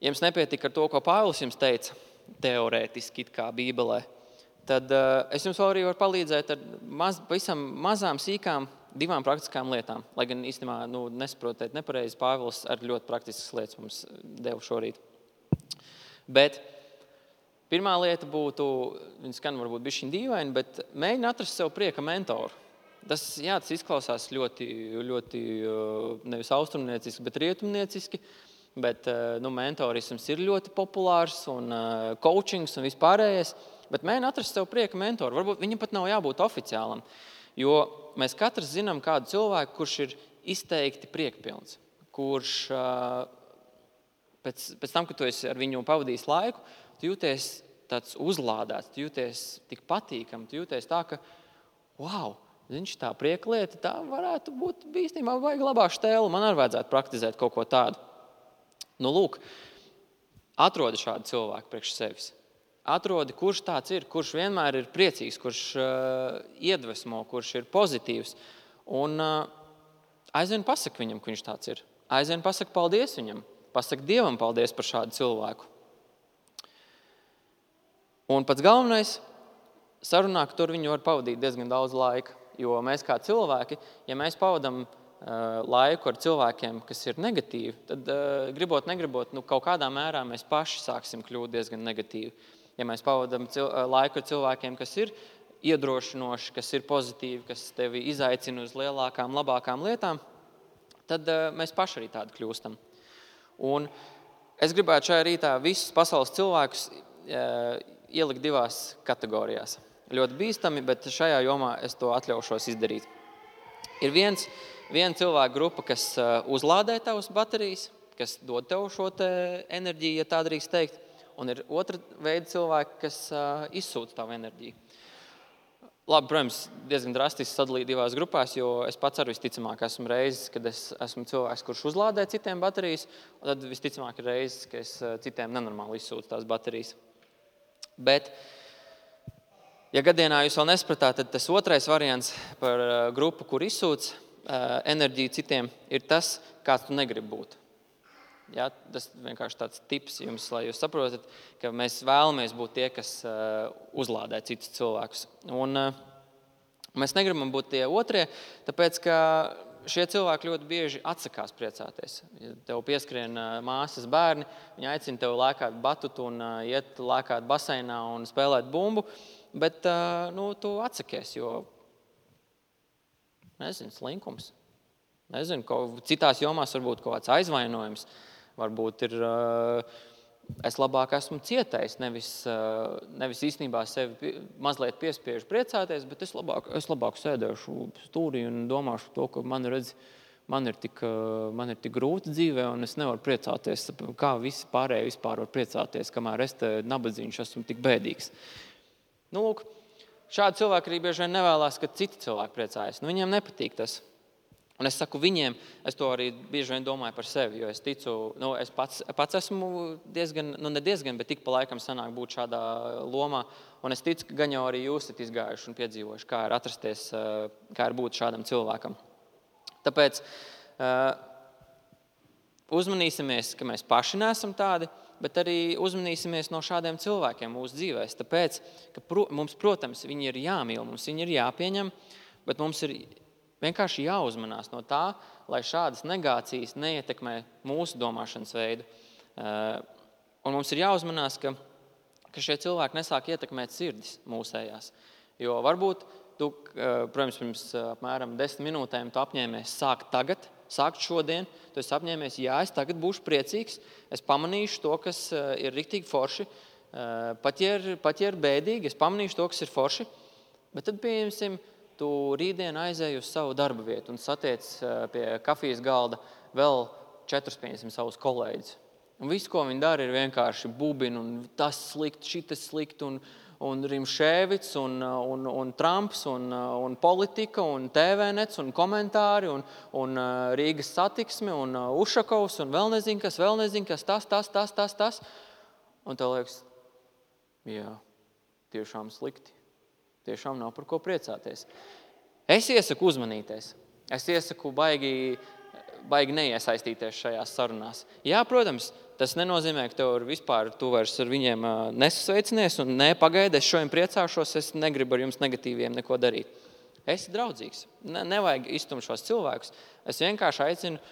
jums nepietika ar to, ko Pāvils jums teica, teorētiski it kā Bībelē, tad es jums vēl arī varu palīdzēt ar pavisam mazām, sīkām, 2 praktiskām lietām. Lai gan īstenībā nesaprotiet nepareizi, Pāvils ar ļoti praktiskas lietas mums deva šorīt. Bet pirmā lieta būtu, viņa skan varbūt bišķiņ dīvaini, bet mēģina atrast sev prieka mentoru. Tas izklausās ļoti, ļoti nevis austrumnieciski, bet rietumnieciski. Bet mentorisms ir ļoti populārs un coachings un vispārējais. Bet mēģina atrast sev prieka mentoru. Varbūt viņam pat nav jābūt oficiālam. Jo mēs katrs zinām kādu cilvēku, kurš ir izteikti priekpilns. Kurš pēc tam, kad tu esi ar viņu pavadījis laiku, tu jūties tāds uzlādēts, tu jūties tik patīkam, tu jūties tā, ka tā prieka lieta, tā varētu būt īstenībā vajag labā štēla. Man arī vajadzētu praktizēt kaut ko tādu. Lūk, atrodi šādu cilvēku priekš sevis. Atrodi, kurš tāds ir, kurš vienmēr ir priecīgs, kurš iedvesmo, kurš ir pozitīvs. Un aizvien pasaka viņam, ka viņš tāds ir. Aizvien pasaka paldies viņam. Pasaka Dievam paldies par šādu cilvēku. Un pats galvenais, sarunā, ka tur viņu var pavadīt diezgan daudz laika. Jo mēs kā cilvēki, ja mēs pavadam laiku ar cilvēkiem, kas ir negatīvi, tad gribot, negribot, kaut kādā mērā mēs paši sāksim kļūt diezgan negatīvi. Ja mēs pavadam laiku ar cilvēkiem, kas ir iedrošinoši, kas ir pozitīvi, kas tevi izaicina uz lielākām, labākām lietām, tad mēs paši arī tādi kļūstam. Un es gribētu šajā rītā visus pasaules cilvēkus ielikt divās kategorijās. Ļoti bīstami, bet šajā jomā es to atļaušos izdarīt. Ir viena cilvēka grupa, kas uzlādē tavas baterijas, kas dod tev šo enerģiju, ja tā drīkst teikt, un ir otra veida cilvēki, kas izsūta tavu enerģiju. Labi, protams, diezgan drastiski sadalīt divās grupās, jo es pats arī visticamāk esmu reizes, kad es esmu cilvēks, kurš uzlādē citiem baterijas, un tad visticamāk ir reizes, ka es citiem nenormāli izsūtu tās baterijas. Bet, ja gadienā jūs vēl nespratāt, tad tas otrais variants par grupu, kur izsūc enerģiju citiem, ir tas, kāds tu negribi būt. Ja, tas vienkārši tāds tips jums, lai jūs saprotat, ka mēs vēlamies būt tie, kas uzlādē citus cilvēkus. Un mēs negribam būt tie otrie, tāpēc, ka šie cilvēki ļoti bieži atsakās priecāties. Ja tev pieskrien māsas bērni, viņi aicina tev lēkāt batutu un iet lēkāt baseinā un spēlēt bumbu, bet tu atsakies, jo slinkums. Citās jomās varbūt kaut kāds aizvainojums. Varbūt ir, es labāk esmu cietējis, nevis īstenībā sevi mazliet piespiežu priecāties, bet es labāk sēdēšu stūrī un domāšu to, ka man ir tik grūti dzīvē un es nevaru priecāties, kā visi pārējie vispār var priecāties, kamēr es te nabadzīņš esmu tik bēdīgs. Lūk, šādi cilvēki arī bieži vien nevēlās, ka citi cilvēki priecājas. Viņiem nepatīk tas. Un es saku viņiem, es to arī bieži vien domāju par sevi, jo es ticu, es pats esmu bet tik pa laikam sanāk būt šādā lomā, un es ticu, ka gan jau arī jūs esat izgājuši un piedzīvojuši, kā ir atrasties, kā ir būt šādam cilvēkam. Tāpēc uzmanīsimies, ka mēs paši neesam tādi, bet arī uzmanīsimies no šādiem cilvēkiem mūsu dzīvēs. Tāpēc, ka mums, protams, viņi ir jāmīl, mums viņi ir jāpieņem, bet mums ir vienkārši jāuzmanās no tā, lai šādas negācijas neietekmē mūsu domāšanas veidu. Un mums ir jāuzmanās, ka šie cilvēki nesāk ietekmēt sirdis mūsējās. Jo varbūt tu, protams, pirms apmēram 10 minūtēm tu apņēmies sākt šodien, tu esi apņēmies, es tagad būšu priecīgs, es pamanīšu to, kas ir riktīgi forši, pat ja ir bēdīgi, es pamanīšu to, kas ir forši, bet tad pieņemsim, tu rītdien aizēji uz savu darba vietu un satiec pie kafijas galda vēl 4-5 savus kolēģus. Un viss, ko viņi dara, ir vienkārši bubina un tas slikt, šitas slikt un Rimšēvits un Trumps un politika un TV-nets un komentāri un Rīgas satiksme un Ušakovs un vēl nezinu kas, tas. Un tev liekas, jā, tiešām slikti. Tiešām nav par ko priecāties. Es iesaku uzmanīties. Es iesaku baigi neiesaistīties šajās sarunās. Jā, protams, tas nenozīmē, ka tu vairs ar viņiem nesasveicinies un pagaidi, es šodien priecāšos, es negribu ar jums negatīviem neko darīt. Esi draudzīgs. Nevajag iztumt šos cilvēkus. Es vienkārši aicinu,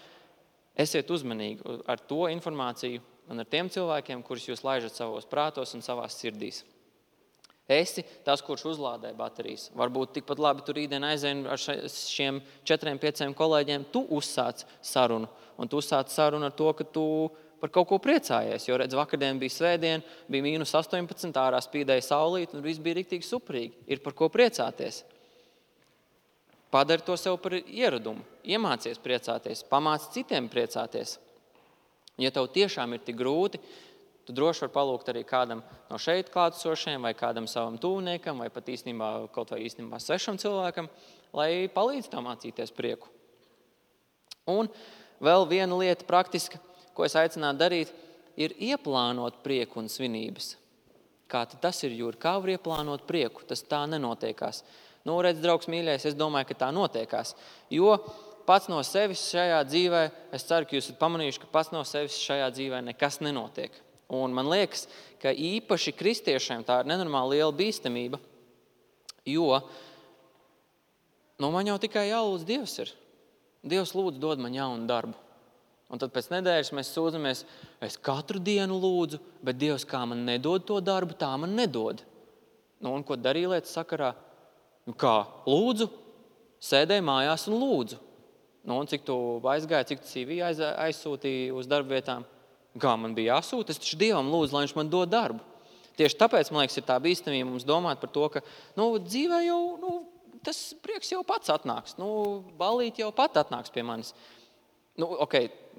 esiet uzmanīgi ar to informāciju un ar tiem cilvēkiem, kurus jūs laižat savos prātos un savās sirdīs. Esi tas, kurš uzlādē baterijas. Varbūt tikpat labi tu rītdien aizēji ar šiem 4-5 kolēģiem, tu uzsāc sarunu. Un tu uzsāc sarunu ar to, ka tu par kaut ko priecājies. Jo, redz, vakardien bija svētdien, bija -18, ārā spīdēja saulīt, un viss bija riktīgi superīgi. Ir par ko priecāties. Padari to sev par ieradumu. Iemācies priecāties, pamāc citiem priecāties. Ja tev tiešām ir tik grūti, tu droši var palūgt arī kādam no šeit klātesošiem vai kādam savam tuvniekam vai pat kaut vai svešam cilvēkam, lai palīdz tev mācīties prieku. Un vēl viena lieta praktiska, ko es aicinātu darīt, ir ieplānot prieku un svinības. Kā tas ir, Jūri? Kā var ieplānot prieku? Tas tā nenotiekās. Redz, draugs mīļais, es domāju, ka tā notiekās. Jo pats no sevis šajā dzīvē, es ceru, ka jūs esat pamanījuši, ka pats no sevis šajā dzīvē nekas nenotiek. Un man liekas, ka īpaši kristiešiem tā ir nenormāli liela bīstamība, jo man jau tikai jālūdz Dievs ir. Dievs lūdzu dod man jaunu darbu. Un tad pēc nedēļas mēs sūdzamies, es katru dienu lūdzu, bet Dievs kā man nedod to darbu, tā man nedod. Un ko darīja lietas sakarā? Kā? Lūdzu, sēdēju mājās un lūdzu. Un cik tu aizgāji, cik tu CV aizsūtīji uz darba vietām? Kā man bija jāsūta? Es taču Dievam lūdzu, lai viņš man dod darbu. Tieši tāpēc, man liekas, ir tā bīstamība mums domāt par to, ka dzīvē jau, tas prieks jau pats atnāks. Ballīt jau pat atnāks pie manis.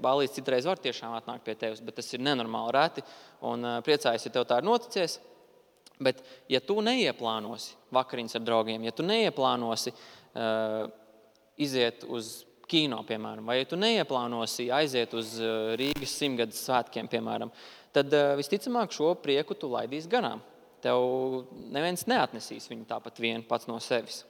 Ballīts citreiz var tiešām atnākt pie tevis, bet tas ir nenormāli reti. Un priecājos, ja tev tā ir noticies. Bet, ja tu neieplānosi vakariņas ar draugiem, ja tu neieplānosi iziet uz kino, piemēram, vai ja tu neieplānosi aiziet uz Rīgas 100-gades svētkiem, piemēram, tad visticamāk šo prieku tu laidīsi garām. Tev neviens neatnesīs viņu tāpat vien pats no sevis.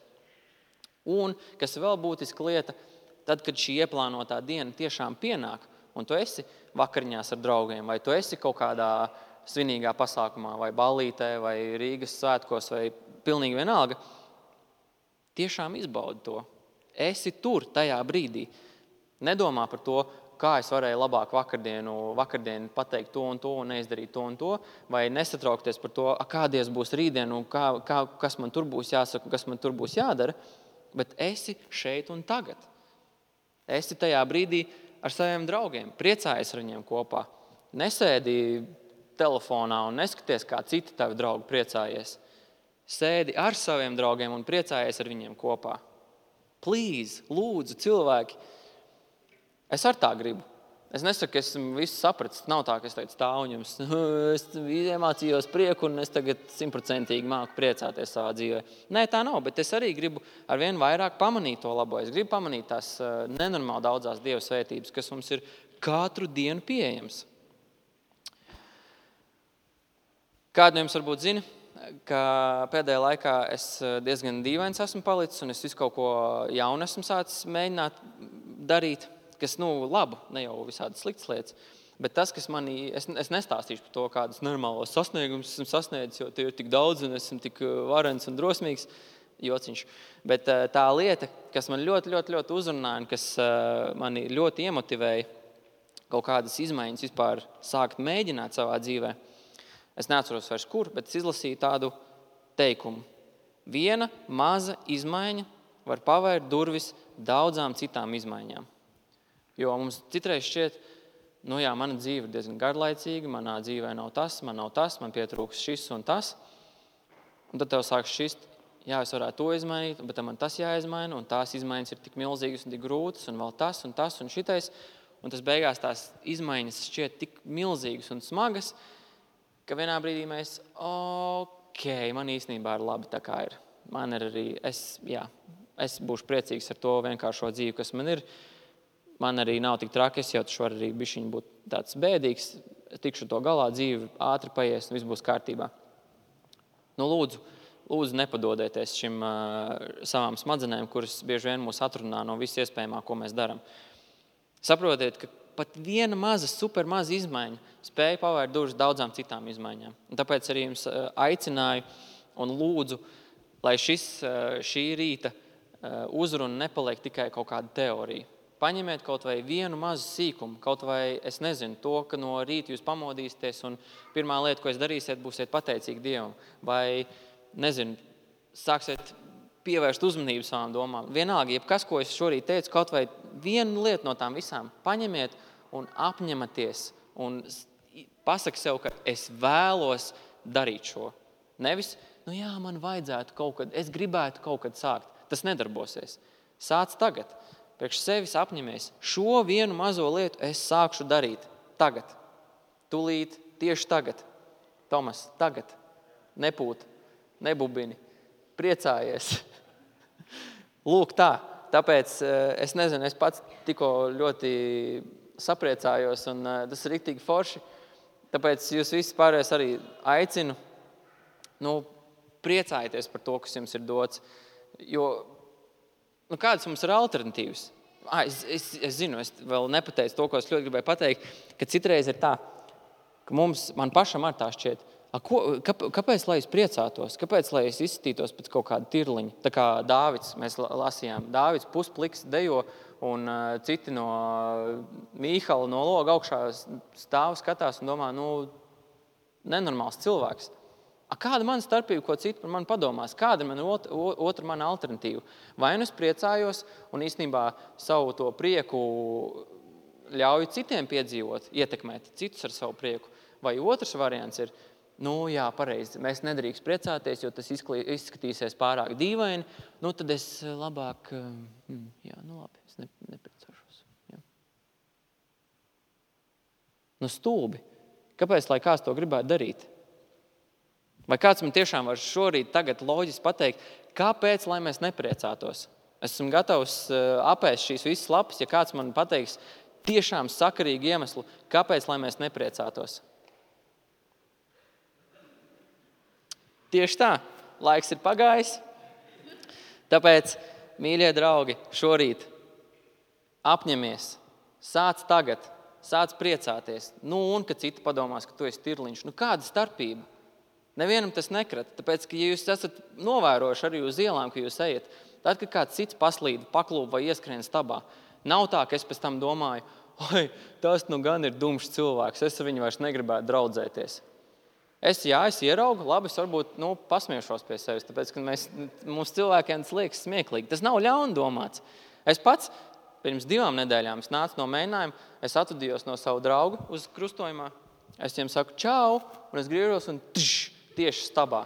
Un, kas vēl būtiska lieta, tad, kad šī ieplānotā diena tiešām pienāk, un tu esi vakariņās ar draugiem, vai tu esi kaut kādā svinīgā pasākumā, vai ballītē, vai Rīgas svētkos, vai pilnīgi vienalga, tiešām izbaudi to. Esi tur tajā brīdī. Nedomā par to, kā es varēju labāk vakardienu pateikt to un neizdarīt to un to, vai nesatraukties par to, kādies būs rītdien un kas man tur būs jāsaka, kas man tur būs jādara, bet esi šeit un tagad. Esi tajā brīdī ar saviem draugiem, priecājies ar viņiem kopā. Nesēdi telefonā un neskaties, kā citi tavi draugi priecājies. Sēdi ar saviem draugiem un priecājies ar viņiem kopā. Please, lūdzu, cilvēki. Es ar tā gribu. Es nesaku, ka esmu visu sapratis. Nav tā, ka es teicu stāvu un jums. Es iemācījos prieku un es tagad 100% māku priecāties savā dzīvē. Nē, tā nav, bet es arī gribu arvien vairāk pamanīt to labo. Es gribu pamanīt tās nenormāli daudzās Dieva svētības, kas mums ir katru dienu pieejams. Kādu no jums varbūt zina, ka pēdējā laikā es diezgan dīvains esmu palicis un es visu kaut ko jaunu esmu sācis mēģināt darīt, kas, labu, ne jau visādi sliktas lietas, bet tas, kas es nestāstīšu par to, kādas normālos sasniegumus esmu sasniedzis, jo tie ir tik daudz un esmu tik varens un drosmīgs, jociņš. Bet tā lieta, kas man ļoti, ļoti, ļoti uzrunāja un kas mani ļoti iemotivēja kaut kādas izmaiņas vispār sākt mēģināt savā dzīvē, es neatceros vairs kur, bet es izlasīju tādu teikumu. Viena maza izmaiņa var pavērt durvis daudzām citām izmaiņām. Jo mums citreiz šķiet, mana dzīve ir diezgan garlaicīga, manā dzīvē nav tas, man pietrūks šis un tas. Un tad tev sāk šķist, es varētu to izmainīt, bet man tas jāizmaina, un tās izmaiņas ir tik milzīgas un tik grūtas, un vēl tas un šitais. Un tas beigās tās izmaiņas šķiet tik milzīgas un smagas, ka vienā brīdī mēs, man īstenībā ir labi tā kā ir. Man ir arī, es būšu priecīgs ar to vienkāršo dzīvi, kas man ir. Man arī nav tik traki, es jau taču varu arī bišķiņ būt tāds bēdīgs, tikšu to galā, dzīvi ātri paies un viss būs kārtībā. Lūdzu nepadodieties šim savām smadzenēm, kuras bieži vien mūs atrunā no viss iespējamā, ko mēs darām. Saprotiet, ka pat viena maza, super maza izmaiņa spēja pavērt durvis daudzām citām izmaiņām. Un tāpēc arī jums aicināju un lūdzu, lai šī rīta uzruna nepaliek tikai kaut kāda teorija. Paņemiet kaut vai vienu mazu sīkumu, kaut vai, es nezinu, to, ka no rīta jūs pamodīsieties un pirmā lieta, ko jūs darīsiet, būsiet pateicīgi Dievam. Vai, nezinu, sāksiet pievērst uzmanību savām domām. Vienalga, jebkas, ko es šorīt teicu, kaut vai vienu lietu no tām visām paņemiet un apņematies un pasaki sev, ka es vēlos darīt šo. Nevis, man vajadzētu kaut kad, es gribētu kaut kad sākt. Tas nedarbosies. Sāc tagad. Priekš sevis apņemies. Šo vienu mazo lietu es sākšu darīt tagad. Tūlīt, tieši tagad. Tomas, tagad. Nepūt, nebubini. Priecājies. Lūk tā. Tāpēc es nezinu, es pats tikko ļoti sapriecājos un tas ir riktīgi forši. Tāpēc jūs visi pārējais arī aicinu priecājieties par to, kas jums ir dots. Jo, kādas mums ir alternatīvas? Es zinu, es vēl nepateicu to, ko es ļoti gribēju pateikt, ka citreiz ir tā, ka man pašam ar tā šķiet, kāpēc, lai es priecātos, kāpēc, lai es izskatītos pēc kaut kāda tirliņa? Tā kā Dāvids, mēs lasījām, Dāvids puspliks dejo, un citi no Mīhala no loga augšā stāv, skatās un domā, nenormāls cilvēks. Kāda mana starpība, ko citi par mani padomās? Kāda ir otra mana alternatīva? Vai es priecājos un īstenībā savu to prieku ļauju citiem piedzīvot, ietekmēt citus ar savu prieku? Vai otrs variants ir, jā, pareizi, mēs nedrīkst priecāties, jo tas izskatīsies pārāk dīvaini, tad es labāk, labi, es nepriecāšos. Jā. Stulbi. Kāpēc, lai kāds to gribētu darīt? Vai kāds man tiešām var šorīt tagad loģiski pateikt, kāpēc, lai mēs nepriecātos? Es esmu gatavs apēst šīs visas lapas, ja kāds man pateiks tiešām sakarīgu iemeslu, kāpēc, lai mēs nepriecātos. Tieši tā, laiks ir pagājis. Tāpēc, mīļie draugi, šorīt apņemies, sāc tagad, sāc priecāties. Un, kad citi padomās, ka tu esi tirliņš. Kāda starpība? Nevienam tas nekrata, tāpēc, ka ja jūs esat novērojuši arī uz ielām, ka jūs ejat, tad, kad kāds cits paslīd, paklūp vai ieskrien stabā, nav tā, ka es pēc tam domāju, tas gan ir dumšs cilvēks, es ar viņu vairs negribētu draudzēties. Es ieraugu, labi, es varbūt pasmiešos pie sevis, tāpēc, ka mums cilvēkiem tas liekas smieklīgi. Tas nav ļauni domāts. Es pats pirms 2 nedēļām es nācu no mēģinājuma, es atvadījos no savu draugu uz krustojumā, es viņiem saku čau, un es griežos un tieši stabā.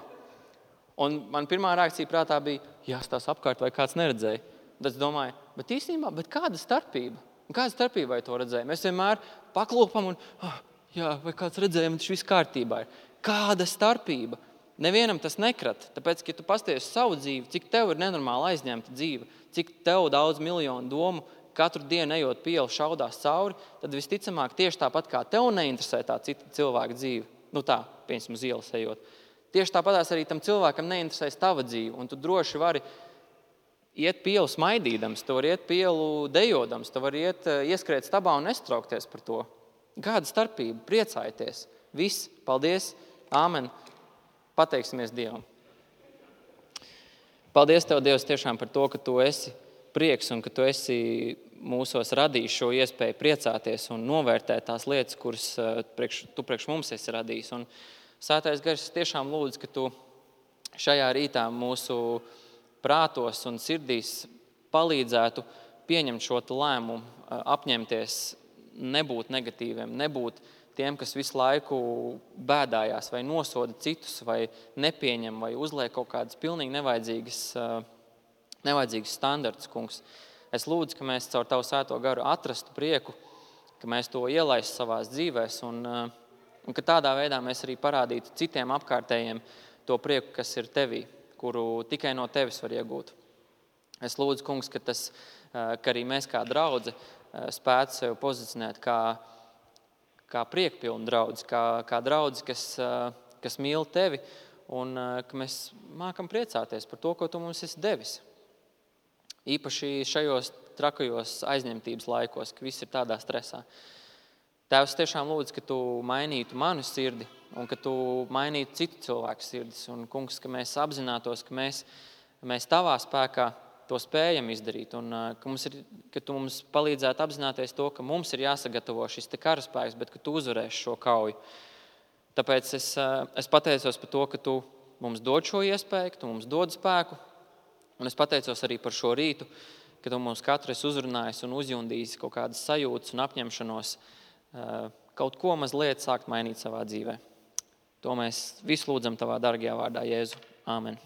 Un man pirmā reakcija prātā bija, jāstās apkārt, vai kāds neredzēja. Tad es domāju, bet īstenībā, kāda starpība? Kāda starpība vai to redzēja? Mēs vienmēr paklūpam un, vai kāds redzēja, man tas viss kārtībā ir. Kāda starpība? Nevienam tas nekrat, tāpēc, ka ja tu pasties savu dzīvi, cik tev ir nenormāli aizņemta dzīve, cik tev daudz miljonu domu, katru dienu ejot pa ielu šaudās cauri, tad visticamāk tieši tāpat kā tev neinteresē tā cita cilvēka dzīve, piemēram, uz ielas ejot. Tieši tāpatās arī tam cilvēkam neinteresēs tava dzīve, un tu droši vari iet pa ielu smaidīdams, tu vari iet pa ielu dejodams, tu vari ieskrēt stabā un nestraukties par to. Kāda starpība? Priecājieties. Viss. Paldies. Āmen. Pateiksimies Dievam. Paldies Tev, Dievs, tiešām par to, ka Tu esi prieks un ka Tu esi mūsos radījis šo iespēju priecāties un novērtēt tās lietas, kuras Tu priekš mums esi radījis. Un Svētais Gars, tiešām lūdzu, ka Tu šajā rītā mūsu prātos un sirdīs palīdzētu pieņemt šo lēmumu, apņemties, nebūt negatīviem, nebūt tiem, kas visu laiku bēdājās vai nosoda citus, vai nepieņem, vai uzliek kaut kādas pilnīgi nevajadzīgas standartus, kungs. Es lūdzu, ka mēs caur Tavu Svēto Garu atrastu prieku, ka mēs to ielaistu savās dzīvēs un ka tādā veidā mēs arī parādītu citiem apkārtējiem to prieku, kas ir Tevī, kuru tikai no Tevis var iegūt. Es lūdzu, kungs, ka arī mēs kā draudze spētu sevi pozicionēt kā priekpilnu draudzi, kā draudzi, kas mīl Tevi un ka mēs mākam priecāties par to, ko Tu mums esi devis. Īpaši šajos trakajos aizņemtības laikos, ka viss ir tādā stresā. Tēvs, tiešām lūdzu, ka Tu mainītu manu sirdi un ka Tu mainītu citu cilvēku sirdis. Un, kungs, ka mēs apzinātos, ka mēs Tavā spēkā to spējam izdarīt un ka Tu mums palīdzētu apzināties to, ka mums ir jāsagatavo šis karaspēks, bet ka Tu uzvarēsi šo kauju. Tāpēc es pateicos par to, ka Tu mums dod šo iespēju, ka Tu mums dod spēku. Un es pateicos arī par šo rītu, ka Tu mums katru esi uzrunājis un uzjundījis kaut kādas sajūtas un apņemšanos kaut ko mazliet sākt mainīt savā dzīvē. To mēs visu lūdzam Tavā dargajā vārdā, Jēzu. Āmen.